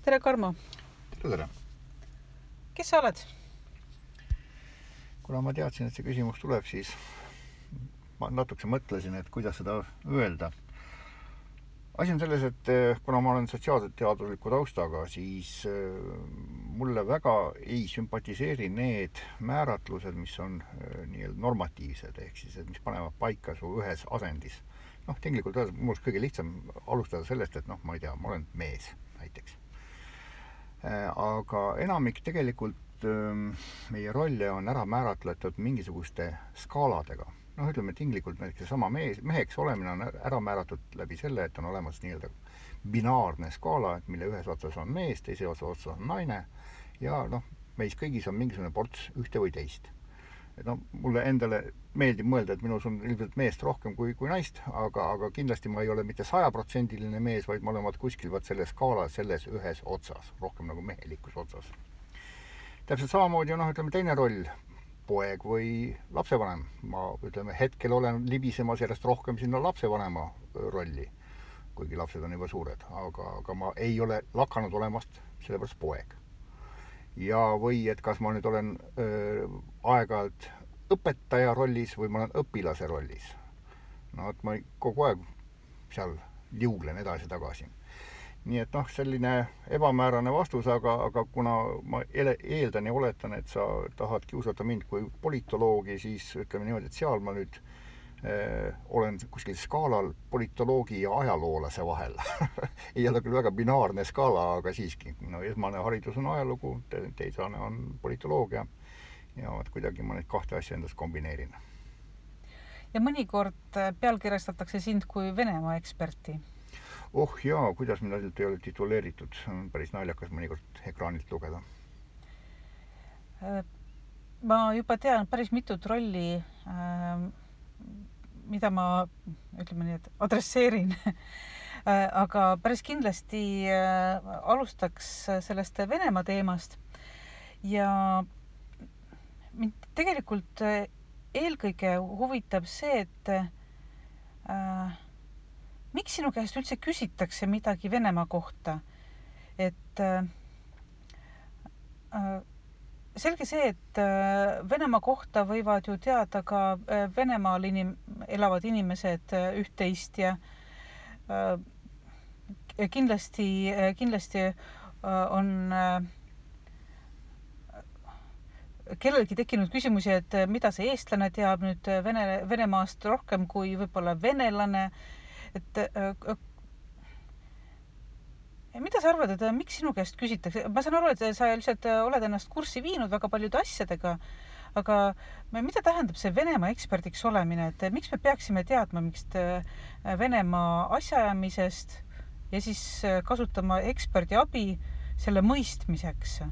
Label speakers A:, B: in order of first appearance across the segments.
A: Tere, Karmo!
B: Tere!
A: Kes sa oled?
B: Kuna ma teadsin, et see küsimus tuleb, siis ma natukese mõtlesin, et kuidas seda öelda. Asi on selles, et kuna ma olen sotsiaalselt teadusliku taustaga, siis mulle väga ei sümpatiseeri need määratlused, mis on nii-öelda normatiivsed, ehk siis, et mis panevad paika su ühes asendis. Tegelikult mul oleks kõige lihtsam alustada sellest, et ma ei tea, ma olen mees näiteks. Aga enamik tegelikult meie rolle on ära määratletud mingisuguste skaaladega. Ütleme tinglikult näiteks sama meheks olemine on ära määratud läbi selle, et on olemas nii-öelda binaarne skaala, mille ühes otsas on mees, teise otsas on naine ja meis kõigis on mingisugune ports ühte või teist. Mulle endale meeldib mõelda, et minus on ilmselt meest rohkem kui naist, aga kindlasti ma ei ole mitte 100% mees, vaid ma olen kuskil selles skaalas, selles ühes otsas, rohkem nagu mehelikus otsas. Täpselt samamoodi on ütleme teine roll, poeg või lapsevanem. Ma hetkel olen libisemas järjest rohkem sinna lapsevanema rolli, kuigi lapsed on juba suured, aga ma ei ole lakanud olemast sellepärast poeg. Ja või et kas ma nüüd olen aeg-ajalt õpetaja rollis või ma olen õpilase rollis. Et ma kogu aeg seal liuglen edasi-tagasi. Nii et selline ebamäärane vastus, aga kuna ma eeldan ja oletan, et sa tahad kiusata mind kui politoloogi, siis ütleme niimoodi, et seal ma nüüd olen kuskil skaalal politoloogi ja ajaloolase vahel. Ei ole küll väga binaarne skaala, aga siiski. Esmane haridus on ajalugu, teisane on politoloogia ja kuidagi ma neid kahte asja endas kombineerin.
A: Ja mõnikord pealkirjastatakse sind kui Venemaa eksperti.
B: Oh jaa, kuidas mind ainult ei ole tituleeritud. On päris naljakas mõnikord ekraanilt lugeda.
A: Ma juba tean päris mitut rolli, mida ma, ütleme nii, et adresseerin. Aga päris kindlasti alustaks sellest Venemaa teemast. Ja mind tegelikult eelkõige huvitab see, et miks sinu käest üldse küsitakse midagi Venemaa kohta? Et selge see, et Venemaa kohta võivad ju teada ka Venemaal elavad inimesed üht-teist ja kindlasti on kellelgi tekkinud küsimusi, et mida see eestlane teab nüüd Venemaast rohkem kui võib-olla venelane. Et mida sa arvad, et miks sinu käest küsitakse? Ma saan aru, et sa lihtsalt oled ennast kurssi viinud väga paljude asjadega, aga mida tähendab see Venemaa eksperdiks olemine? Et miks me peaksime teadma mingist Venemaa asjaajamisest ja siis kasutama eksperdi abi selle mõistmiseks?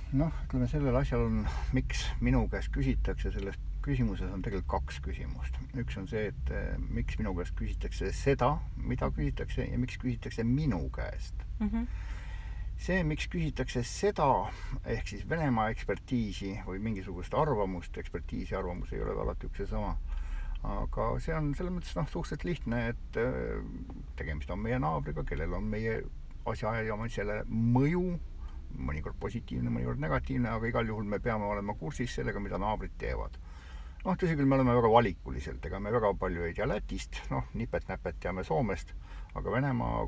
B: Ütleme sellel asjal on, miks minu käest küsitakse, selles küsimuses on tegelikult kaks küsimust. Üks on see, et miks minu käest küsitakse seda, mida küsitakse ja miks küsitakse minu käest. See, miks küsitakse seda, ehk siis Venemaa ekspertiisi või mingisugust arvamust, ekspertiisi arvamus ei ole alati üks ja sama. Aga see on selles mõttes suhteliselt lihtne, et tegemist on meie naabriga, kellel on meie asjaajamisele mõju, mõnikord positiivne, mõnikord negatiivne, aga igal juhul me peame olema kursis sellega, mida naabrid teevad. Tõsi küll, me oleme väga valikuliselt, ega me väga palju ei tea Lätist, nipet-näpet teame Soomest, aga Venemaa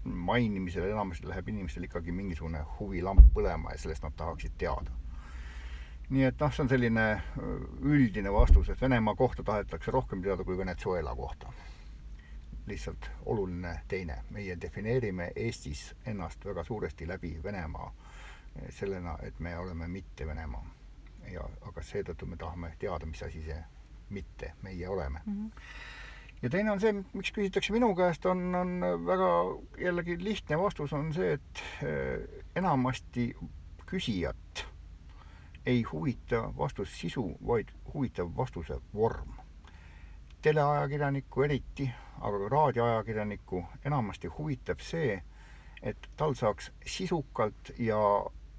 B: mainimisel enamasti läheb inimestel ikkagi mingisugune huvilamp põlema ja sellest nad tahaksid teada. Nii et see on selline üldine vastus, et Venemaa kohta tahetakse rohkem teada kui Venezuela kohta. Lihtsalt oluline teine. Meie defineerime Eestis ennast väga suuresti läbi Venemaa sellena, et me oleme mitte Venemaa. Aga seetõttu me tahame teada, mis asi see mitte meie oleme. Ja teine on see, miks küsitakse minu käest, on väga jällegi lihtne vastus on see, et enamasti küsijat ei huvita vastus sisu, vaid huvitab vastuse vorm. Teleajakirjaniku eriti, aga ka raadioajakirjaniku enamasti huvitab see, et tal saaks sisukalt ja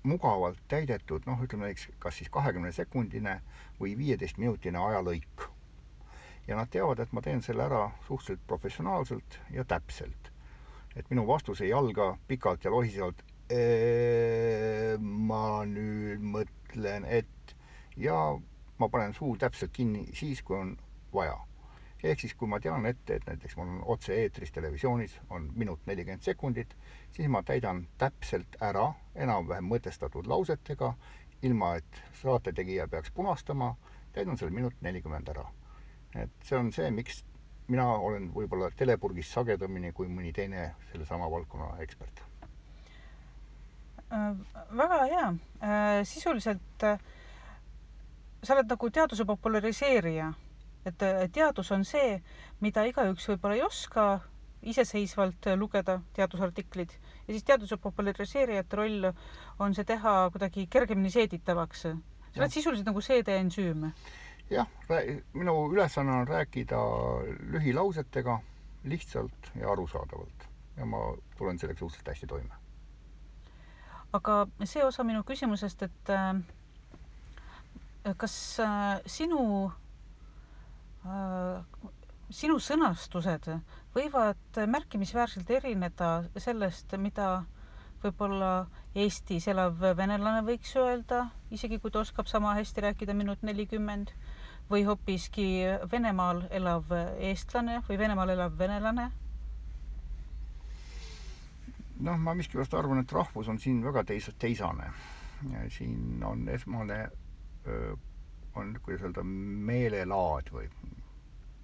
B: mugavalt täidetud, ütleme kas siis 20-sekundine või 15-minutine ajalõik. Ja nad teavad, et ma teen selle ära suhteliselt professionaalselt ja täpselt. et minu vastus ei alga pikalt ja lohisevalt ma nüüd mõtlen, et ja ma panen suu täpselt kinni siis, kui on vaja. Ehk siis, kui ma tean ette, et näiteks mul on otse-eetris televisioonis on minut 40 sekundit, siis ma täidan täpselt ära enam-vähem mõtestatud lausetega, ilma et saatetegija peaks punastama, täidan selle minut 40 ära. Et see on see, miks mina olen võib-olla telepurgis sagedamini kui mõni teine selle sama valdkonna ekspert.
A: Väga hea. Sisuliselt sa oled nagu teaduse populariseerija. Et teadus on see, mida igaüks võib-olla ei oska iseseisvalt lugeda, teadusartiklid. Ja siis teaduse populariseerijate roll on see teha kuidagi kergemini seeditavaks. Sa oled sisuliselt nagu seedeensüüm.
B: Jah, minu ülesanne on rääkida lühilausetega lihtsalt ja arusaadavalt. Ja ma tulen selleks suhteliselt hästi toime.
A: Aga see osa minu küsimusest, et kas sinu sõnastused võivad märkimisväärselt erineda sellest, mida võib-olla Eestis elav venelane võiks öelda, isegi kui ta oskab sama hästi rääkida minut 40, või hoopiski Venemaal elav eestlane või Venemaal elav venelane?
B: Noh, ma miskipärast arvan, et rahvus on siin väga teisane. Siin on esmane on, kuidas öelda, meelelaad või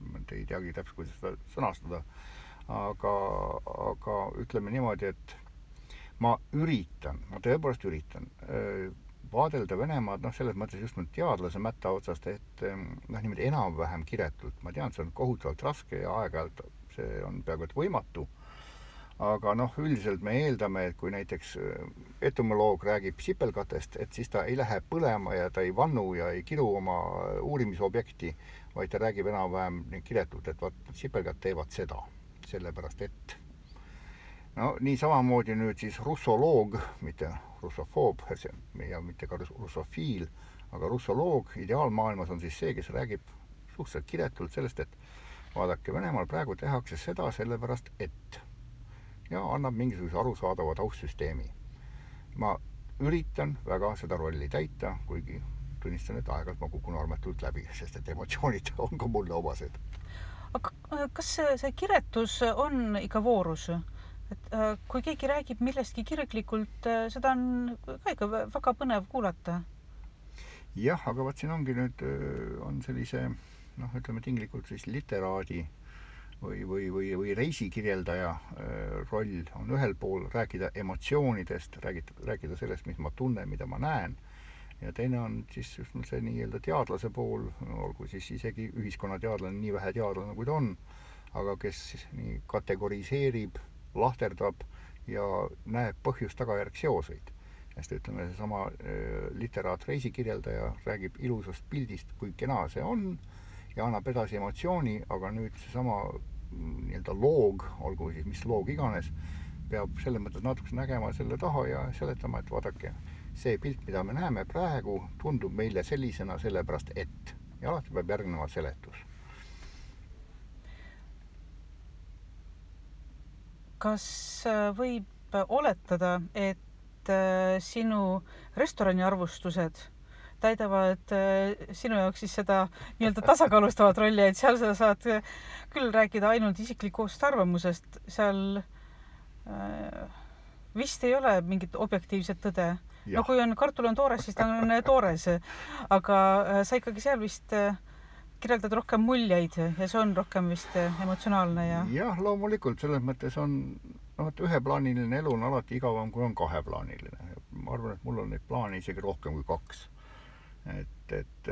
B: ma ei teagi täpselt, kuidas seda sõnastada, aga ütleme niimoodi, et ma tõepoolest üritan vaadelda Venemaad, selles mõttes just teadlase mätta otsast, et niimoodi enam-vähem kiretult. Ma tean, see on kohutavalt raske ja aeg-ajalt see on peaaegu et võimatu. Aga üldiselt me eeldame, et kui näiteks entomoloog räägib sipelgatest, et siis ta ei lähe põlema ja ta ei vannu ja ei kiru oma uurimisobjekti, vaid ta räägib enam-vähem kiretult, et sipelgad teevad seda, sellepärast et nii samamoodi nüüd siis russoloog, mitte russofoob ja mitte ka russofiil, aga russoloog ideaalmaailmas on siis see, kes räägib suhteliselt kiretult sellest, et vaadake, Venemaal praegu tehakse seda sellepärast, et ja annab mingisuguse arusaadava taustsüsteemi. Ma üritan väga seda rolli täita, kuigi tunnistan, et aeg-ajalt ma kukun armetult läbi, sest et emotsioonid on ka mulle omased.
A: Aga kas see kiretus on ikka voorus? Et kui keegi räägib millestki kirglikult, seda on ka ikka väga põnev kuulata.
B: Jah, aga vaat siin ongi nüüd on sellise, ütleme tinglikult siis literaadi või reisikirjeldaja roll on ühel pool rääkida emotsioonidest, rääkida sellest, mis ma tunnen, mida ma näen, ja teine on siis just see nii-öelda teadlase pool, olgu siis isegi ühiskonnateadlane, nii vähe teadlane kui ta on, aga kes nii kategoriseerib, lahterdab ja näeb põhjust-tagajärg seoseid. Sest ütleme, see sama literaat reisikirjeldaja räägib ilusast pildist, kui kena see on, ja annab edasi emotsiooni, aga nüüd see sama nii-öelda loog, olgu siis mis loog iganes, peab selles mõttes natuke nägema selle taha ja seletama, et vaadake, see pilt, mida me näeme praegu, tundub meile sellisena sellepärast, et. Ja alati peab järgnema seletus.
A: Kas võib oletada, et sinu restorani arvustused täidavad sinu jaoks siis seda nii-öelda tasakaalustavat rolli, et seal sa saad küll rääkida ainult isiklikust arvamusest, seal vist ei ole mingit objektiivset tõde. No kui on kartul on toores, siis ta on toores, aga sa ikkagi seal vist kirjeldad rohkem muljeid ja see on rohkem vist emotsionaalne ja...
B: Jah, loomulikult, selles mõttes on üheplaaniline elu on alati igavam, kui on kaheplaaniline. Ma arvan, et mul on neid plaane isegi rohkem kui 2. Et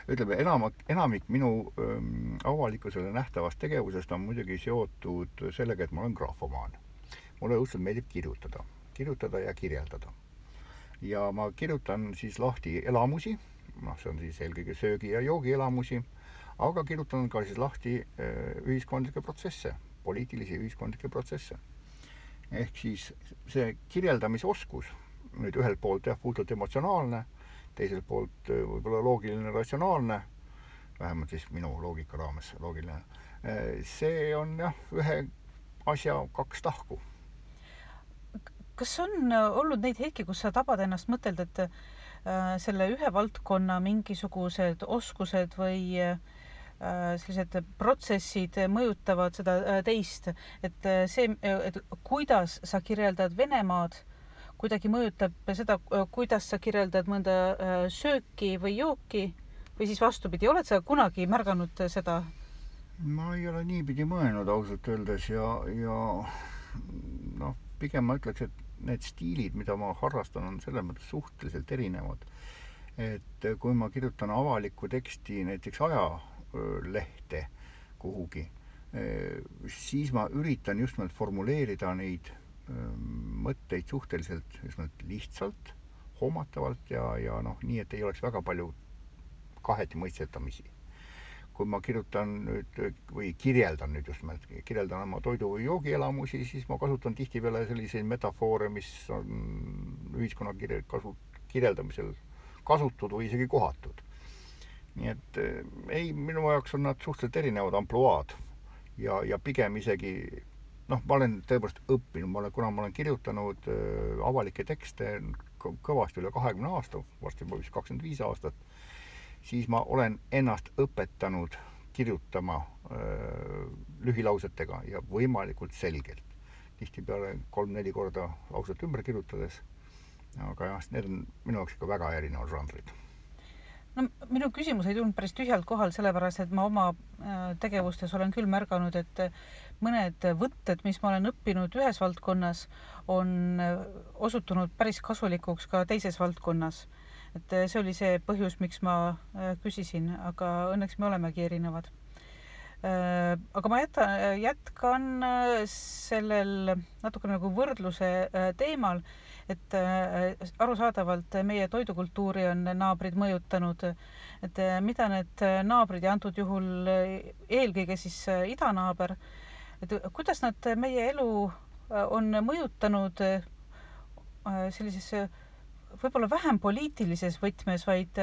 B: ütleme, enamik minu avalikkusele nähtavast tegevusest on muidugi seotud sellega, et ma olen graafomaan. Mulle õudselt meeldib kirjutada ja kirjeldada. Ja ma kirjutan siis lahti elamusi, see on siis eelkõige söögi- ja joogielamusi, aga kirjutan ka siis lahti ühiskondlikke protsesse, poliitilisi ühiskondlikke protsesse. Ehk siis see kirjeldamise oskus, nüüd ühelt poolt puhtalt emotsionaalne, teiselt poolt võib-olla loogiline, ratsionaalne, vähemalt siis minu loogika raames loogiline. See on ühe asja kaks tahku.
A: Kas on olnud neid hetki, kus sa tabad ennast mõtelda, et selle ühe valdkonna mingisugused oskused või sellised protsessid mõjutavad seda teist, et et kuidas sa kirjeldad Venemaad, kuidagi mõjutab seda, kuidas sa kirjeldad mõnda sööki või jooki või siis vastupidi, oled sa kunagi märganud seda?
B: Ma ei ole niipidi mõelnud ausalt öeldes ja noh, pigem ma ütleks, et need stiilid, mida ma harrastan, on selles mõttes suhteliselt erinevad. Et kui ma kirjutan avalikku teksti näiteks ajalehte kuhugi, siis ma üritan just nimelt formuleerida neid mõtteid suhteliselt just nimelt lihtsalt, hoomatavalt ja noh, nii, et ei oleks väga palju kaheti mõistetamisi. Kui ma kirjutan nüüd või kirjeldan nüüd just nimelt, kirjeldan oma toidu- või joogielamusi, siis ma kasutan tihtipeale selliseid metafoore, mis on ühiskonna kirjeldamisel kasutud või isegi kohatud. Nii et ei, minu jaoks on nad suhteliselt erinevad ampluaad ja pigem isegi, noh, ma olen tõepoolest õppinud, kuna ma olen kirjutanud avalikke tekste kõvasti üle 20 aasta, varsti juba vist 25 aastat, siis ma olen ennast õpetanud kirjutama lühilausetega ja võimalikult selgelt. Tihtipeale 3-4 korda lauset ümber kirjutades, aga jah, need on minu jaoks ikka väga erinevad žanrid.
A: No, minu küsimus ei tulnud päris tühjalt kohal, sellepärast, et ma oma tegevustes olen küll märganud, et mõned võtted, mis ma olen õppinud ühes valdkonnas, on osutunud päris kasulikuks ka teises valdkonnas. Et see oli see põhjus, miks ma küsisin, aga õnneks me olemegi erinevad. Aga ma jätkan sellel natuke nagu võrdluse teemal, et arusaadavalt meie toidukultuuri on naabrid mõjutanud, et mida need naabrid ja antud juhul eelkõige siis idanaaber, et kuidas nad meie elu on mõjutanud sellises võib-olla vähem poliitilises võtmes, vaid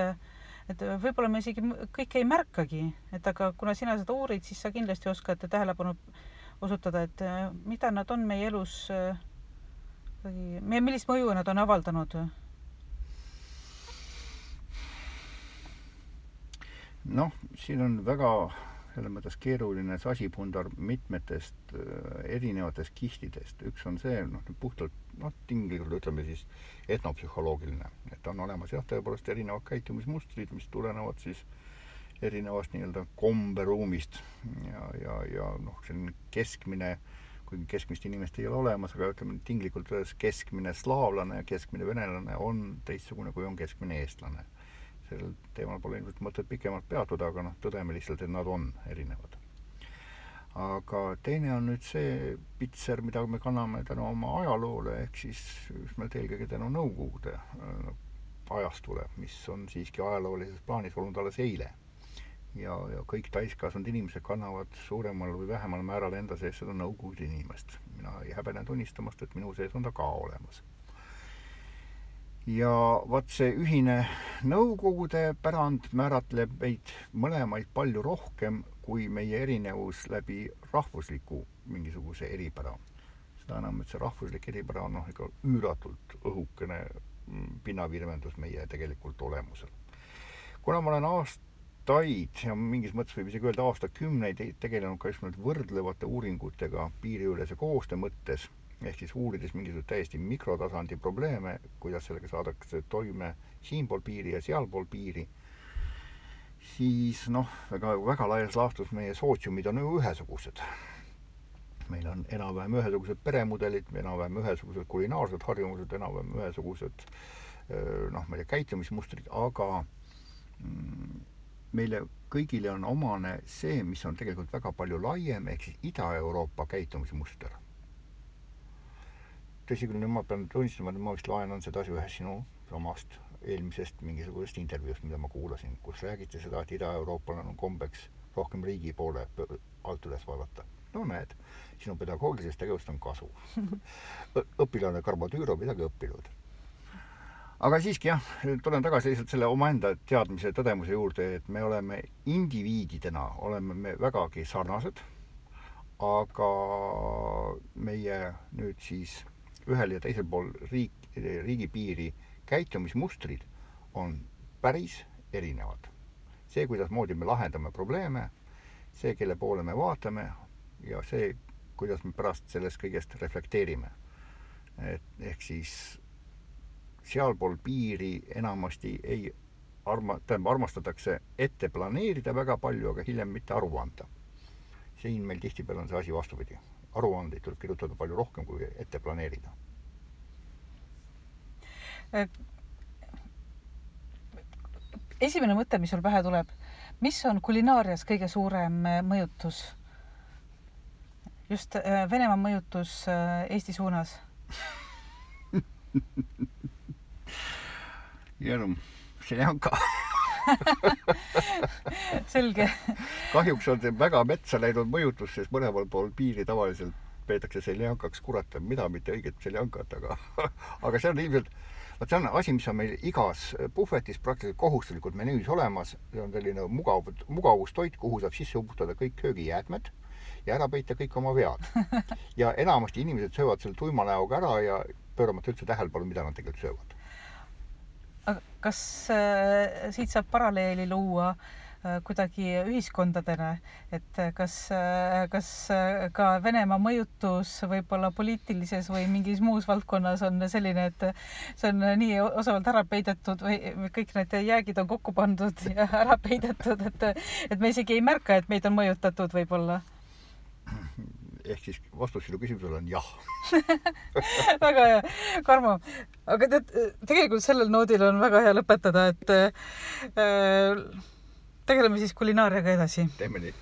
A: et võib-olla me isegi kõike ei märkagi, et aga kuna sina seda uurid, siis sa kindlasti oskad tähelepanu osutada, et mida nad on meie elus, millist mõju nad on avaldanud?
B: Noh, siin on väga selles mõttes keeruline sasipundar mitmetest erinevatest kihtidest. Üks on see, puhtalt tinglikult ütleme siis etnopsühholoogiline, et on olemas jah, tõepoolest erinevad käitumismustrid, mis tulenevad siis erinevast nii-öelda komberuumist ja noh, selline keskmine, kuigi keskmist inimest ei ole olemas, aga ütleme tinglikult öeldes keskmine slaavlane ja keskmine venelane on teistsugune, kui on keskmine eestlane. Sellel teemal pole ilmselt mõtet pikemalt peatuda, aga tõdeme lihtsalt, et nad on erinevad. Aga teine on nüüd see pitser, mida me kanname tänu oma ajaloole, ehk siis just meil eelkõige tänu Nõukogude ajastule, mis on siiski ajaloolises plaanis olnud alles eile. Ja kõik täiskasvanud inimesed kannavad suuremal või vähemal määral enda sees seda Nõukogude inimest. Mina ei häbene tunnistamast, et minu sees on ta ka olemas. Ja vaat see ühine Nõukogude pärand määratleb meid mõlemaid palju rohkem kui meie erinevus läbi rahvusliku mingisuguse eripära. Seda enam, et see rahvuslik eripära on ikka üüratult õhukene pinnavirvendus meie tegelikult olemusel. Kuna ma olen aastaid ja mingis mõttes võib isegi öelda aastakümneid tegelenud ka just võrdlevate uuringutega piiriülese koostöö mõttes, ehk siis uurides mingisugused täiesti mikrotasandi probleeme, kuidas sellega saadakse toime siinpool piiri ja sealpool piiri, siis väga laias laastus meie sootsiumid on ju ühesugused. Meil on enam-vähem ühesugused peremudelid, enam-vähem ühesugused kulinaarsed harjumused, enam-vähem ühesugused meie käitumismustrid, aga meile kõigile on omane see, mis on tegelikult väga palju laiem, ehk siis Ida-Euroopa käitumismuster. Tõsi küll, ma pean tunnistama, et ma vist laenan seda asja ühes sinu omast eelmisest mingisugusest intervjuust, mida ma kuulasin, kus räägiti seda, et Ida-Euroopal on kombeks rohkem riigi poole alt üles vaadata. No näed, sinu pedagoogilisest tegevust on kasu. Õpilane Karbo-Tüüro midagi õppinud. Aga siiski jah, tulen tagasi lihtsalt selle omaenda teadmise tõdemuse juurde, et me oleme indiviididena, oleme me vägagi sarnased, aga meie nüüd siis ühel ja teisel pool riigipiiri käitumismustrid on päris erinevad. See, kuidasmoodi me lahendame probleeme, see, kelle poole me vaatame ja see, kuidas me pärast sellest kõigest reflekteerime. Ehk siis sealpool piiri enamasti armastatakse ette planeerida väga palju, aga hiljem mitte aru anda. Siin meil tihtipeale on see asi vastupidi. Aruandeid tuleb kirjutada palju rohkem kui ette planeerida.
A: Esimene mõte, mis sul pähe tuleb, mis on kulinaarias kõige suurem mõjutus? Just Venemaa mõjutus Eesti suunas?
B: Jäänu, seljanka.
A: Selge.
B: Kahjuks on see väga metsa läinud mõjutus, sest mõlemal pool piiri tavaliselt peetakse seljankaks kurata, mida mitte õiget seljankat, aga see on ilmselt, see on asi, mis on meil igas puhvetis praktiliselt kohustuslikult menüüs olemas. See on selline mugavustoit, kuhu saab sisse uputada kõik köögijäätmed ja ära peita kõik oma vead. Ja enamasti inimesed söövad selle tuima näoga ära ja pööramata üldse tähelepanu, mida nad tegelikult söövad.
A: Kas siit saab paralleeli luua kuidagi ühiskondadena, et kas ka Venemaa mõjutus võib-olla poliitilises või mingis muus valdkonnas on selline, et see on nii osavalt ära peidetud või kõik need jäägid on kokku pandud ja ära peidetud, et me isegi ei märka, et meid on mõjutatud võib-olla?
B: Ehk siis vastus sinu küsimusele on jah.
A: Väga hea. Karmo, aga tegelikult sellel noodil on väga hea lõpetada, et tegeleme siis kulinaariaga edasi.
B: Teeme nii.